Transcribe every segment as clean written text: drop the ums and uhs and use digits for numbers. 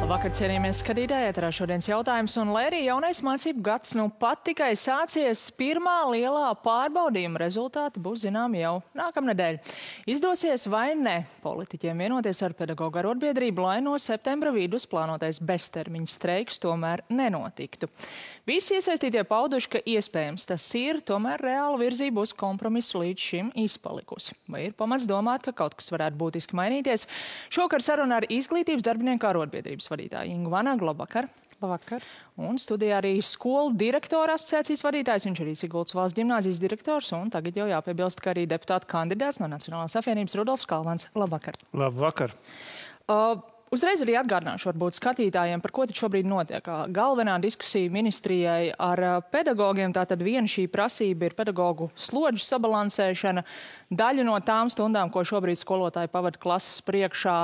Labvakar, cienījamies skatītāji, ēterā šodienas jautājums, un lai arī jaunais mācību gads pat tikai sācies, pirmā lielā pārbaudījuma rezultāti būs zināmi jau nākamnedēļ. Izdosies vai ne politiķiem vienoties ar pedagoģu arotbiedrību, lai no septembra vidus plānotais beztermiņa streiks tomēr nenotiktu. Visi iesaistītie pauduši, ka iespējams tas ir, tomēr reāla virzība uz kompromisu līdz šim izpalikusi. Vai ir pamats domāt, ka kaut kas varētu būtiski mainīties? Šokar saruna ar izglītības darbinieku arotbiedrības vadītāju Ingu Vanagu. Labvakar. Labvakar. Un studijā arī skolu direktora asociācijas vadītājs, viņš arī Sigultas valsts ģimnāzijas direktors, un tagad jau jāpiebilst, ka arī deputāta kandidāts no Nacionālās apvienības Rudolfs Kalvans. Labvakar. Labvakar. Uzreiz arī atgādināšu varbūt skatītājiem, par ko tad šobrīd notiek. Galvenā diskusija ministrijai ar pedagogiem, tātad viena šī prasība ir pedagogu slodžu sabalansēšana. Daļu no tām stundām, ko šobrīd skolotāji pavada klases priekšā,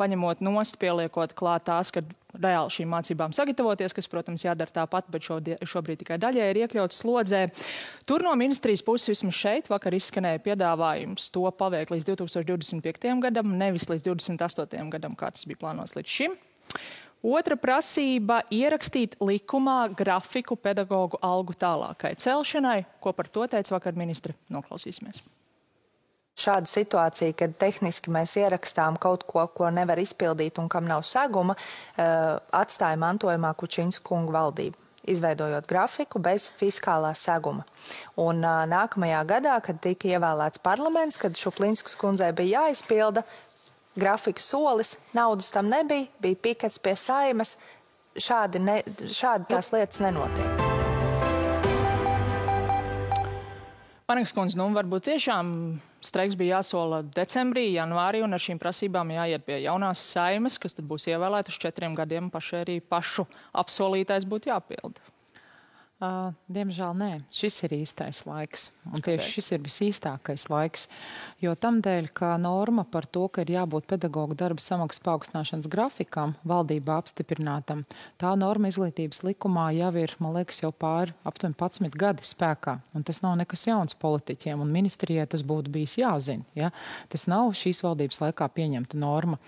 paņemot nost, pieliekot klāt tās, kad reāli šīm mācībām sagatavoties, kas, protams, jādara tāpat, bet šobrīd tikai daļai ir iekļauts slodzē. Tur no ministrijas puses vismaz šeit vakar izskanēja piedāvājums to paveikt līdz 2025. gadam, nevis līdz 28. gadam, kā tas bija plānots līdz šim. Otra prasība - ierakstīt likumā grafiku pedagogu algu tālākai celšanai. Ko par to teica vakar ministre? Noklausīsimies. Šādu situāciju, kad tehniski mēs ierakstām kaut ko, ko nevar izpildīt un kam nav seguma, atstāja mantojumā Kučiņas kunga valdība, izveidojot grafiku bez fiskālā seguma. Un nākamajā gadā, kad tika ievēlēts parlaments, kad Šuplinskas kundzei bija jāizpilda grafika solis, naudas tam nebija, bija pikets pie Saimas, šādi tās lietas nenotiek. Vanagas kundze, varbūt tiešām streiks bija jāsola decembrī, janvārī, un ar šīm prasībām jāiet pie jaunās Saimas, kas tad būs ievēlēta uz 4 gadiem, arī pašu apsolītais būtu jāpilda. Diemžēl nē, šis ir īstais laiks. Un tieši šis ir visīstākais laiks. Jo tamdēļ, ka norma par to, ka ir jābūt pedagogu darba samaksas paaugstināšanas grafikam, valdībā apstiprinātam, tā norma izglītības likumā jau ir, man liekas, jau pāri aptuveni 11 gadi spēkā. Un tas nav nekas jauns politiķiem, un ministrijai tas būtu bijis jāzina. Ja? Tas nav šīs valdības laikā pieņemta norma.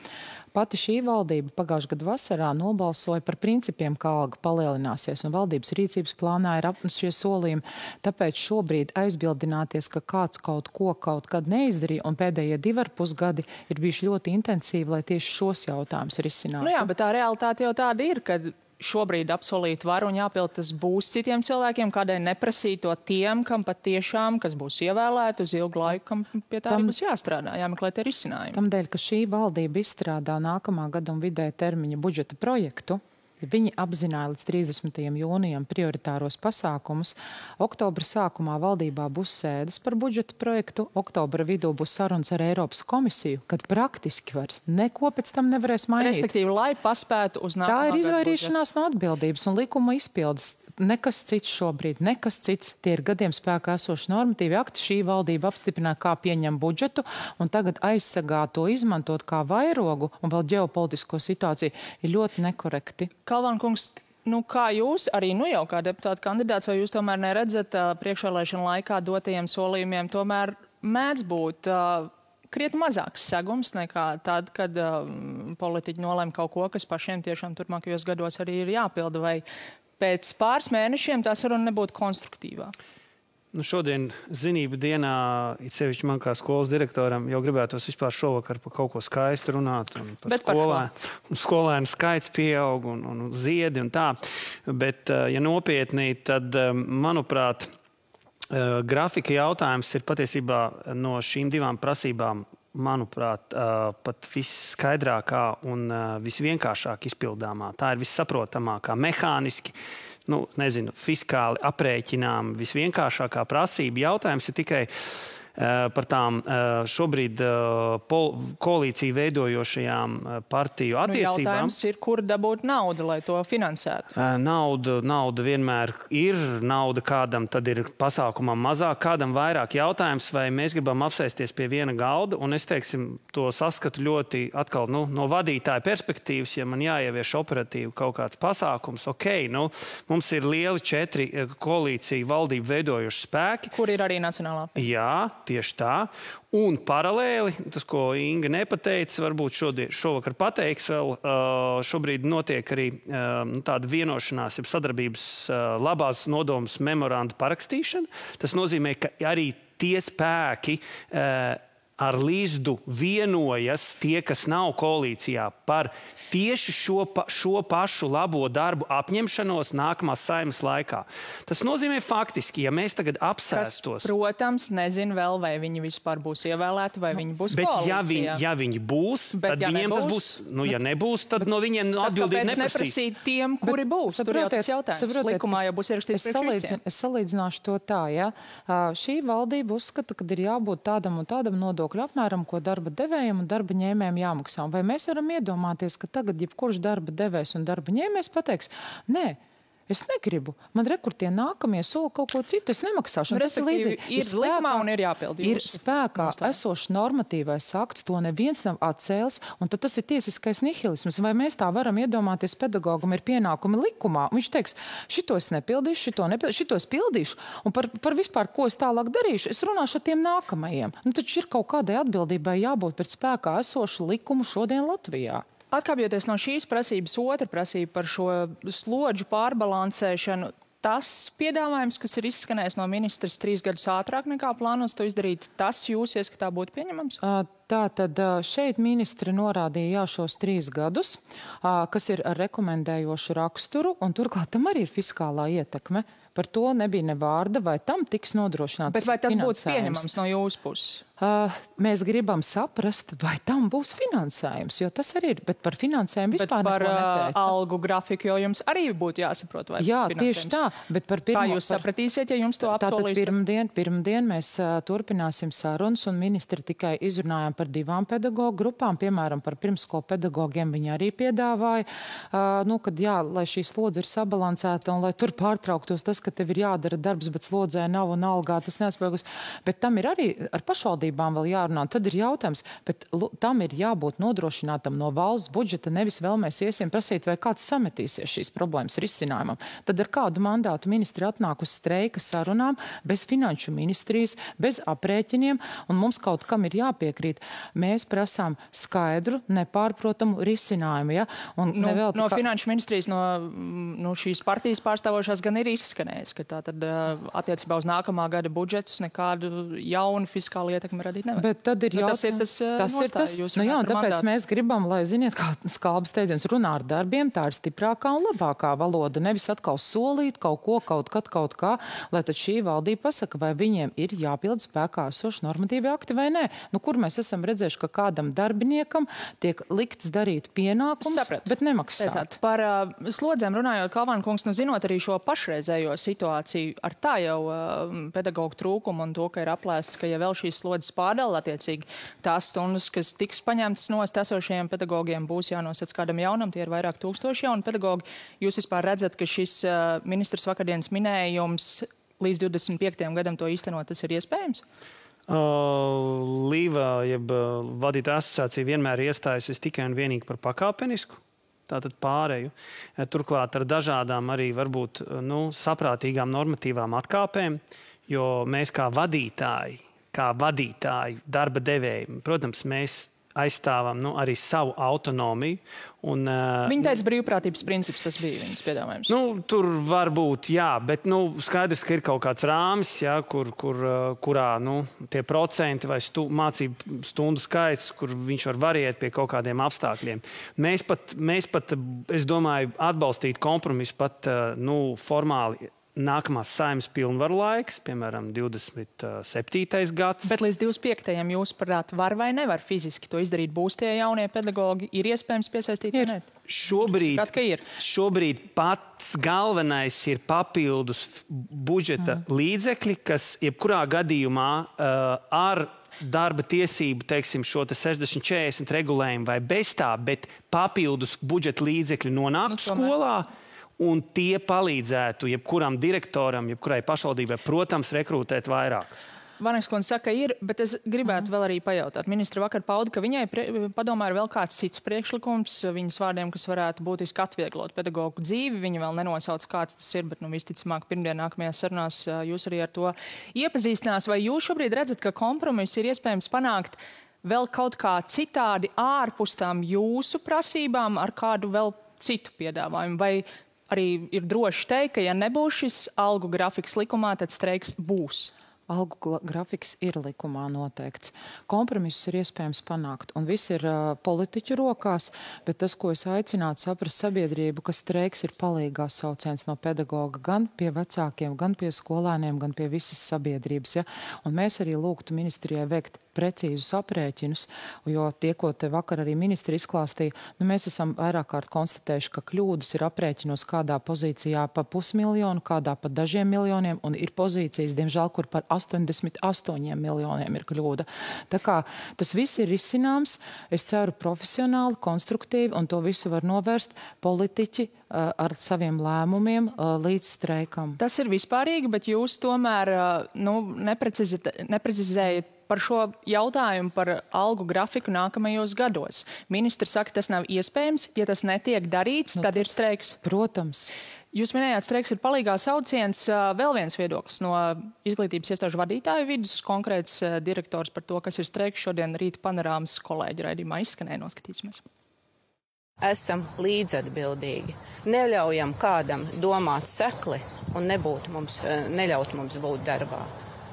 Pati šī valdība pagājušā gada vasarā nobalsoja par principiem, kā alga palielināsies, un valdības rīcības plānā ir šie solījumi. Tāpēc šobrīd aizbildināties, ka kāds kaut ko kaut kad neizdarīja, un pēdējie 2,5 gadi ir bijuši ļoti intensīvi, lai tieši šos jautājumus risinātu. Jā, bet tā realitāte jau tāda ir, kad šobrīd apsolīt var un jāpild tas būs citiem cilvēkiem, kādēļ neprasīt to tiem, kam patiešām, kas būs ievēlēti uz ilgu laiku, kam pie tā būs jāstrādā, jāmeklē tie risinājumi. Tamdēļ, ka šī valdība izstrādā nākamā gada un vidēja termiņa budžeta projektu, viņi apzināja līdz 30. jūnijam prioritāros pasākumus. Oktobra sākumā valdībā būs sēdes par budžeta projektu, oktobra vidū būs sarunas ar Eiropas komisiju, kad praktiski vairs neko pēc tam nevarēs mainīt. Respektīvi, lai paspētu uz nākamā gada budžetu. Tā ir izvairīšanās no atbildības un likuma izpildes. Nekas cits šobrīd, nekas cits. Tie ir gadiem spēkā esoši normatīvi akti. Šī valdība apstiprināja, kā pieņem budžetu, un tagad aizsegā to izmantot kā vairogu un vēl ģeopolitisko situāciju ir ļoti nekorekti. Kalvan kungs, kā jūs, arī jau kā deputāta kandidāts, vai jūs tomēr neredzat priekšvēlēšanu laikā dotajiem solījumiem, tomēr mēdz būt krietni mazāks segums nekā tad, kad politiķi nolēma kaut ko, kas pašiem tiešām turpmākajos gados arī ir jāpilda, vai pēc pāris mēnešiem tā saruna nebūtu konstruktīvā? Šodien zinību dienā, it sevišķi man kā skolas direktoram, jau gribētos vispār šovakar par kaut ko skaistu runāt. Un par skolēnu skaits pieaug un ziedi un tā. Bet, ja nopietni, tad, manuprāt, grafika jautājums ir patiesībā no šīm divām prasībām, manuprāt, pat visskaidrākā un visvienkāršāk izpildāmā. Tā ir vissaprotamākā, mehāniski, fiskāli aprēķinām, visvienkāršākā prasība. Jautājums ir tikai par tām šobrīd koalīciju veidojošajām partiju attiecībām. Jautājums ir, kur dabūt naudu, lai to finansētu? Nauda vienmēr ir. Nauda kādam tad ir pasākumam mazāk, kādam vairāk. Jautājums, vai mēs gribam apsēsties pie viena galda, un es, to saskatu ļoti atkal no vadītāja perspektīvas, ja man jāievieš operatīvi kaut kāds pasākums. Mums ir lieli 4 koalīciju valdību veidojuši spēki. Kur ir arī Nacionālā? Jā. tieši tā. Un paralēli, tas, ko Inga nepateica, varbūt šovakar pateiks vēl, šobrīd notiek arī tāda vienošanās, jeb sadarbības labās nodomas memoranda parakstīšana. Tas nozīmē, ka arī tie spēki ar Līzdu vienojas, tie, kas nav koalīcijā, par tieši šo pašu labo darbu apņemšanos nākamās Saeimas laikā. Tas nozīmē faktiski, ja mēs tagad apsēstos... Kas, protams, nezinu vēl, vai viņi vispār būs ievēlēti, vai viņi būs koalīcijā. Bet ja viņi būs, tad viņiem tas būs... Nu, ja nebūs, tad no viņiem atbildība neprasīs. Kāpēc neprasīt tiem, kuri būs? Tur jau tas jautājums. Likumā jau būs ierakstīts priekš visiem. Es salīdzināšu to tā, ja. Šī valdība uzskata, ka ir jābūt tādam un tādam nodokļu apmēram, ko darba devējiem un darba ņēmējiem jāmaksā. Vai mēs varam iedomāties, ka tagad jebkurš darba devējs un darba ņēmējs pateiks, nē, es negribu. Man rekurtie nākamie sola kaut ko citu, es nemaksāšu. Tas ir līdzīgi. Ir likumā un ir jāpildi. Ir spēkā esošs normatīvais akts, to neviens nav atcēlis, un tad tas ir tiesiskais nihilisms. Vai mēs tā varam iedomāties, pedagogam ir pienākumi likumā, un viņš teiks, šito es nepildīšu, šito es pildīšu, un par vispār, ko es tālāk darīšu, es runāšu ar tiem nākamajiem. Nu, taču ir kaut kādai atbildībai jābūt pēc spēkā esošu likumu šodien Latvijā. Atkāpjoties no šīs prasības, otra prasība par šo slodžu pārbalansēšanu, tas piedāvājums, kas ir izskanējis no ministras 3 gadus ātrāk nekā plānos to izdarīt, tas jūs ieskatā būtu pieņemams? Tātad šeit ministri norādīja šos 3 gadus, kas ir ar rekomendējošu raksturu, un turklāt tam arī ir fiskālā ietekme. Par to nebija ne vārda, vai tam tiks nodrošināts finansējums. Bet vai tas būtu pieņemams no jūsu puses? Mēs gribam saprast, vai tam būs finansējums, jo tas arī ir, bet par finansējumu vispār neko neteica. Bet par algu grafiku, jo jums arī būtu jāsaprot, vai jā, būs finansējums. Tieši tā, bet par pirmo... Kā jūs sapratīsiet, ja jums to apsolīs? Tātad pirmdien mēs turpināsim sarunas, un ministri tikai izrunājām par 2 pedagoģu grupām, piemēram, par pirmskolu pedagogiem viņi arī piedāvāja, kad jā, lai šī slodze ir sabalansēta un lai tur pārtrauktos tas, ka tev ir jādara darbs, bet slodzē nav un algā tas nespēkus. Bet tam ir arī ar pašvaldībām vēl jārunā. Tad ir jautājums, bet tam ir jābūt nodrošinātam no valsts budžeta, nevis vēl mēs iesim prasīt, vai kāds sametīsies šīs problēmas risinājumam. Tad ar kādu mandātu ministri atnāk uz streika sarunām, bez finanšu ministrijas, bez aprēķiniem, un mums kaut kam ir jāpiekrīt. Mēs prasām skaidru, nepārprotamu risinājumu. Ja? No finanšu ministrijas, no šīs partijas pārstāvošās gan ir izskanējis, ka tā tad attiecībā uz nākamā gada budžetus nekādu jaunu fiskālu ietekmi radīt nevar. Bet tad ir jautājums. Tas ir tas. Nu jā, tāpēc mēs gribam, lai, ziniet, kā Skalbas teidziens, runā ar darbiem, tā ir stiprākā un labākā valoda. Nevis atkal solīt kaut ko, kaut kā, lai tad šī valdība pasaka, vai viņiem ir jāpild spēkā esoši normatīvi akti vai nē. Nu, kur mēs esam redzējuši, ka kādam darbiniekam tiek likts darīt pienākums, bet nemaksāt. Par slodzēm runājot, Kalvāna kungs, zinot arī šo pašreizējo situāciju, ar tā jau pedagoģu trūkumu un to, ka ir aplēsts, ka ja vēl šīs slodzes pārdala attiecīgi tās stundas, kas tiks paņemtas nost esošajiem pedagogiem, būs jānosēc kādam jaunam, tie ir vairāk tūkstoši jauni pedagogi. Jūs vispār redzat, ka šis ministrs vakardienas minējums līdz 25. gadam to īstenot, tas ir iespējams? Līva, jeb vadītāja asociācija vienmēr iestājusies tikai un vienīgi par pakāpenisku. Tātad pārēju. Turklāt ar dažādām arī varbūt saprātīgām normatīvām atkāpēm, jo mēs kā vadītāji, darba devēji, protams, mēs aizstāvam arī savu autonomiju. Viņa teica, brīvprātības princips tas bija viņas piedāvājums. Tur var būt, jā, bet skaidrs, ka ir kaut kāds rāmis, jā, kurā tie procenti vai mācību stundu skaits, kur viņš var variēt pie kaut kādiem apstākļiem. Mēs pat, es domāju, atbalstīt kompromisu pat formāli nākamās Saeimas pilnvaru laiks, piemēram, 27. gads. Bet līdz 25. jūs prāt var vai nevar fiziski to izdarīt? Būs tie jaunie pedagogi? Ir iespējams piesaistīt? Šobrīd pats galvenais ir papildus budžeta līdzekļi, kas jebkurā gadījumā ar darba tiesību, teiksim, šo 60-40 regulējumu vai bez tā, bet papildus budžeta līdzekļi nonāk skolā. Un tie palīdzētu jebkuram direktoram, jebkurai pašvaldībai, protams, rekrutēt vairāk. Vaneks kundze saka, ir, bet es gribētu vēl arī pajautāt. Ministra vakar pauda, ka viņai padomā ir vēl kāds cits priekšlikums, viņas vārdiem, kas varētu būtiski atvieglot pedagogu dzīvi. Viņa vēl nenosauc, kāds tas ir, bet visticamāk pirmdien nākamajās sarunās jūs arī ar to iepazīstinās. Vai jūs šobrīd redzat, ka kompromiss ir iespējams panākt vēl kaut kā citādi ārpus tām jūsu prasībām ar kādu vēl citu piedāvājumu? Vai arī ir droši teikt, ka ja nebūs šis algu grafiks likumā, tad streiks būs? Algu grafiks ir likumā noteikts. Kompromisus ir iespējams panākt, un viss ir politiķu rokās, bet tas, ko es aicinātu saprast sabiedrību, ka streiks ir palīgās sauciens no pedagoga gan pie vecākiem, gan pie skolēniem, gan pie visas sabiedrības. Ja? Un mēs arī lūgtu ministrijai veikt precīzus aprēķinus, jo tie, ko te vakar arī ministri izklāstīja, mēs esam vairāk kārt konstatējuši, ka kļūdas ir aprēķinos kādā pozīcijā pa 500 000, kādā pa dažiem miljoniem, un ir pozīcijas, diemžēl, kur par 88 miljoniem ir kļūda. Tā kā tas viss ir izcināms, es ceru profesionāli, konstruktīvi, un to visu var novērst politiķi ar saviem lēmumiem līdz streikam. Tas ir vispārīgi, bet jūs tomēr neprecizējat par šo jautājumu par algu grafiku nākamajos gados. Ministri saka, tas nav iespējams. Ja tas netiek darīts, tad ir streiks. Protams. Jūs minējāt, streiks ir palīgā sauciens. Vēl viens viedoklis no izglītības iestāžu vadītāju vidus, konkrēts direktors par to, kas ir streiks. Šodien Rīta panorāmas kolēģi raidījumā izskanēja, noskatīsimies. Esam līdzatbildīgi. Neļaujam kādam domāt sekli un neļaut mums būt darbā.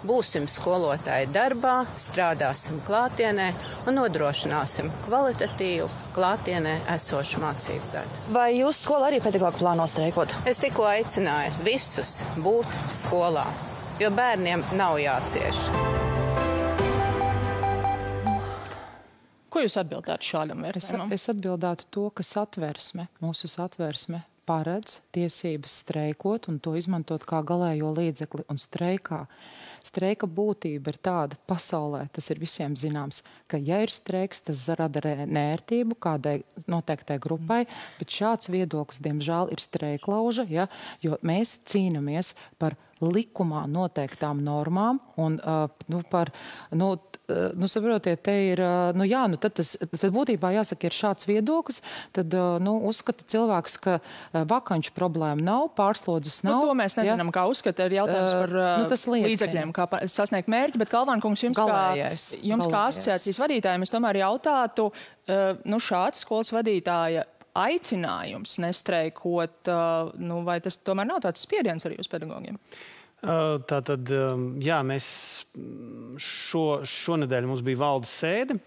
Būsim skolotāji darbā, strādāsim klātienē un nodrošināsim kvalitatīvu klātienē esošu mācību gadu. Vai jūs skola arī pedagogi plāno streikot? Es tikko aicināju visus būt skolā, jo bērniem nav jācieš. Ko jūs atbildētu šādam vērtējumam? Es atbildētu to, ka mūsu satversme paredz tiesības streikot un to izmantot kā galējo līdzekli un streikā. Streika būtība ir tāda pasaulē, tas ir visiem zināms, ka ja ir streiks, tas rada nērtību kādai noteiktai grupai, bet šāds viedoklis, diemžēl, ir streiklauža, ja, jo mēs cīnamies par likumā noteiktām normām un saprotiet, te ir, tad tas būtībā jāsaka, ir šāds viedoklis, tad, uzskata cilvēks, ka vakanču problēma nav, pārslodzes nav. To mēs nezinām, kā uzskata, ir jautājums par līdzekļiem, kā sasniegt mērķi, bet Kalvāna kungs, jums kā asociācijas vadītājiem, es tomēr jautātu, šāds skolas vadītāja aicinājums nestreikot, vai tas tomēr nav tāds spiediens arī uz pedagogiem? Tātad, jā, mēs šonedēļ mums bija valdes sēde.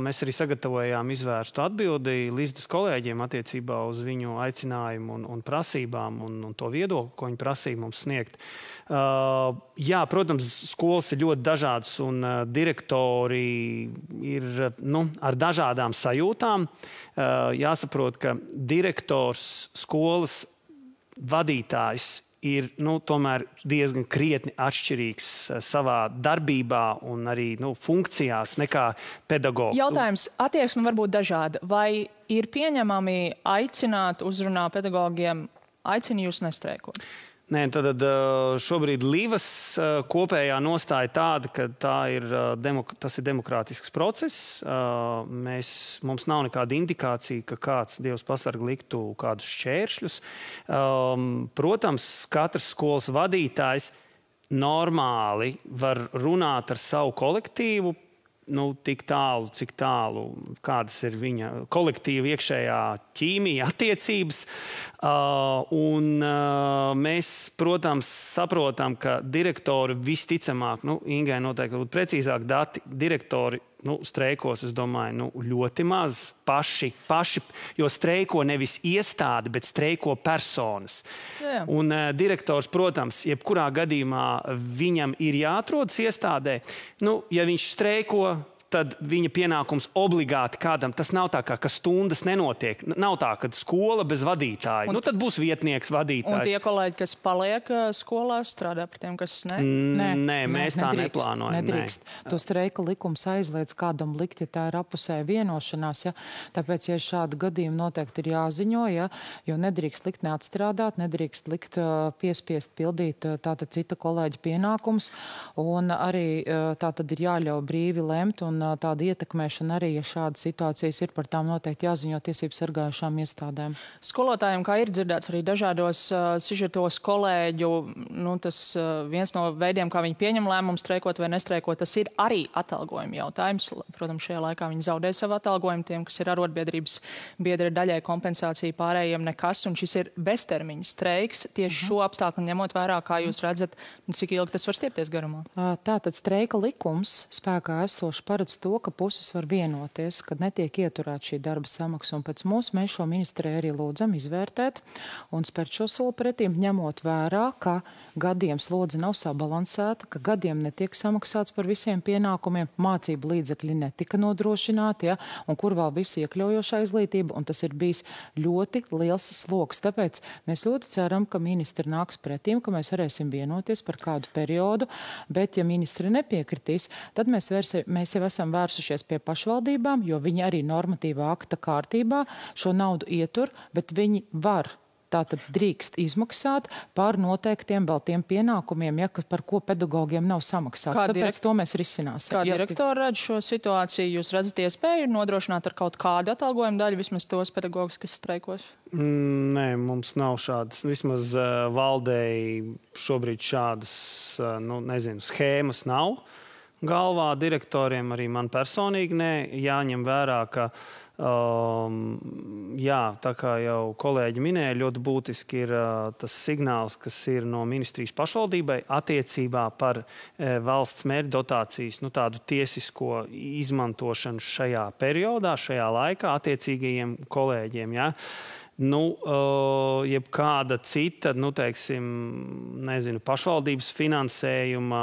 Mēs arī sagatavojām izvērstu atbildi Līsdas kolēģiem attiecībā uz viņu aicinājumu un prasībām un to viedokli, ko viņi prasīja mums sniegt. Jā, protams, skolas ir ļoti dažādas un direktori ir ar dažādām sajūtām. Jāsaprot, ka direktors, skolas vadītājs ir tomēr diezgan krietni atšķirīgs savā darbībā un arī funkcijās nekā pedagogs. Jautājums, attieksme var būt dažāda. Vai ir pieņemami aicināt uzrunā pedagogiem, aicina jūs nestreikot? Nē, tad šobrīd Līvas kopējā nostāja tāda, ka tas ir demokrātisks process. Mums nav nekāda indikācija, ka kāds, Dievs pasarg, liktu kādus šķēršļus. Protams, katrs skolas vadītājs normāli var runāt ar savu kolektīvu, tik tālu, cik tālu, kādas ir viņa kolektīva iekšējā ķīmija, attiecības. Mēs, protams, saprotam, ka direktori visticamāk, Ingai noteikti būtu precīzāk dati, direktori streikos, es domāju, ļoti maz paši, jo streiko nevis iestāde, bet streiko personas. Jā. Un direktors, protams, jebkurā gadījumā viņam ir jāatrodas iestādē. Ja viņš streiko, tad viņa pienākums obligāti kādam. Tas nav tā, ka stundas nenotiek. Nav tā, ka skola bez vadītāja. Tad būs vietnieks vadītājs. Un tie kolēģi, kas paliek skolā, strādā par tiem, kas ne? Nē, mēs tā neplānojam. Nedrīkst. To streika likums aizliedz kādam likt, ja tā ir apusēja vienošanās. Ja? Tāpēc, ja šādi gadījumi noteikti ir jāziņo, ja? Jo nedrīkst likt neatstrādāt, nedrīkst likt piespiest pildīt tātad cita kolēģa pienākums. Un arī tātad ir jāļauj brīvi lemt un tāda ietekmēšana arī, ja šādas situācijas ir, par tām noteikti jāziņo tiesību sargājušām iestādēm. Skolotājiem, kā ir dzirdēts arī dažādos sižetos kolēģu, tas viens no veidiem, kā viņi pieņem lēmumu streikot vai nestreikot, tas ir arī atalgojuma jautājums. Protams, šajā laikā viņi zaudē savu atalgojumu, tiem, kas ir arotbiedrības biedri, daļai kompensācija, pārējiem nekas, un šis ir beztermiņa streiks. Tieši šo apstākļu ņemot vērā, kā jūs redzat, cik ilgi tas var stiepties garumā? Tātad streika likums spēkā esoši paredz to, ka puses var vienoties, kad netiek ieturēta šī darba samaksa. Un pēc mums mēs šo ministriju arī lūdzam izvērtēt un spērt šo soli pretīm, ņemot vērā, ka gadiem slodze nav sabalansēta, ka gadiem netiek samaksāts par visiem pienākumiem, mācību līdzekļi netika nodrošināti, ja, un kur vēl visi iekļaujošā izglītība, un tas ir bijis ļoti liels sloks. Tāpēc mēs ļoti ceram, ka ministri nāks pretīm, ka mēs varēsim vienoties par kādu periodu, bet ja ministri nepiekritīs, tad mēs jau esam vērsušies pie pašvaldībām, jo viņi arī normatīvā akta kārtībā šo naudu ietur, bet viņi var tātad drīkst izmaksāt par noteiktiem vēl tiem pienākumiem, ja, par ko pedagogiem nav samaksāt. Tāpēc to mēs risināsim. Kā direktori redz šo situāciju? Jūs redzat iespēju nodrošināt ar kaut kādu atalgojumu daļu, vismaz tos pedagogus, kas streikos? Nē, mums nav šādas. Vismaz valdēji šobrīd šādas, schēmas nav. Galvā direktoriem arī man personīgi jāņem vērā, ka, tā kā jau kolēģi minēja, ļoti būtiski ir tas signāls, kas ir no ministrijas pašvaldībai attiecībā par valsts mērķu dotācijas, tādu tiesisko izmantošanu šajā periodā, šajā laikā attiecīgajiem kolēģiem, ja. Jebkāda cita, pašvaldības finansējuma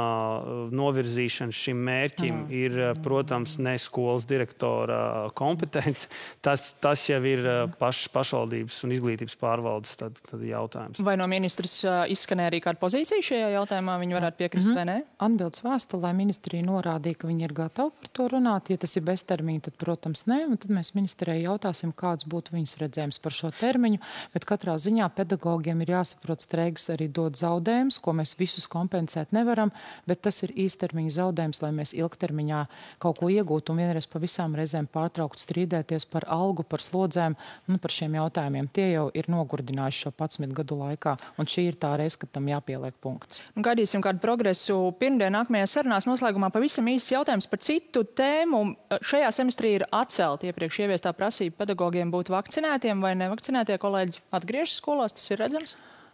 novirzīšana šim mērķim ir, protams, ne skolas direktora kompetence. Tas jau ir pašvaldības un izglītības pārvaldes tad jautājums. Vai no ministras izskanēja arī kāda pozīcija šajā jautājumā? Viņi varētu piekrist vai ne? Atbildes vēstulē ministrija norādīja, ka viņi ir gatavi par to runāt. Ja tas ir beztermiņa, tad, protams, nē. Un tad mēs ministrijai jautāsim, kāds būtu viņas redzējums par šo termiņu, bet katrā ziņā pedagogiem ir jāsaprot, streiks arī dod zaudējumus, ko mēs visus kompensēt nevaram, bet tas ir īstermiņa zaudējums, lai mēs ilgtermiņā kaut ko iegūtu un vienreiz pa visām reizēm pārtraukt strīdēties par algu, par slodzēm un par šiem jautājumiem. Tie jau ir nogurdinājuši šo 11 gadu laikā, un šī ir tā reize, kad tam jāpieliek punkts. Gaidīsim kādu progresu pirmdien nākamajās sarunās. Noslēgumā pavisam īsts jautājums par citu tēmu. Šajā semestrī ir atcelta iepriekš ieviestā prasība pedagogiem būt vakcinētiem vai nevakcinētie kolēģi atgriežas skolās, tas ir redzams?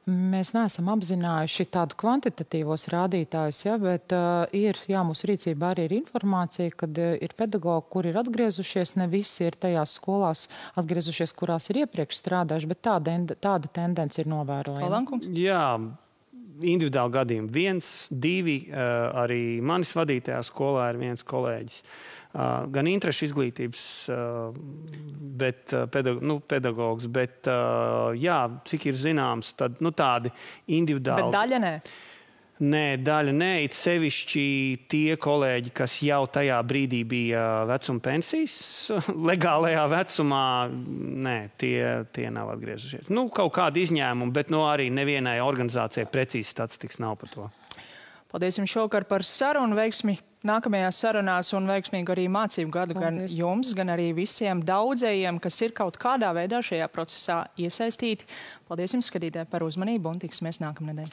Mēs neesam apzinājuši tādu kvantitatīvos rādītājus, bet mūsu rīcībā arī ir informācija, kad ir pedagogi, kuri ir atgriezušies, ne visi ir tajās skolās atgriezušies, kurās ir iepriekš strādājuši, bet tāda tendence ir novērojama. Jā, individuāli gadījumi 1, 2, arī manis vadītajā skolā ir viens kolēģis. Gan interešu izglītības pedagogs, bet, cik ir zināms, tad tādi individuāli. Bet daļa nē? Nē, daļa nē. It sevišķi tie kolēģi, kas jau tajā brīdī bija vecuma pensijas, legālajā vecumā, tie nav atgriezušies. Kaut kādi izņēmumi, bet arī nevienai organizācijai precīzi statistikas nav par to. Paldies jums šovakar par sarunu, veiksmi nākamajās sarunās un veiksmīgu arī mācību gadu gan jums, gan arī visiem daudzējiem, kas ir kaut kādā veidā šajā procesā iesaistīti. Paldies jums, skatītāji, par uzmanību un tiksimies nākamnedēļ.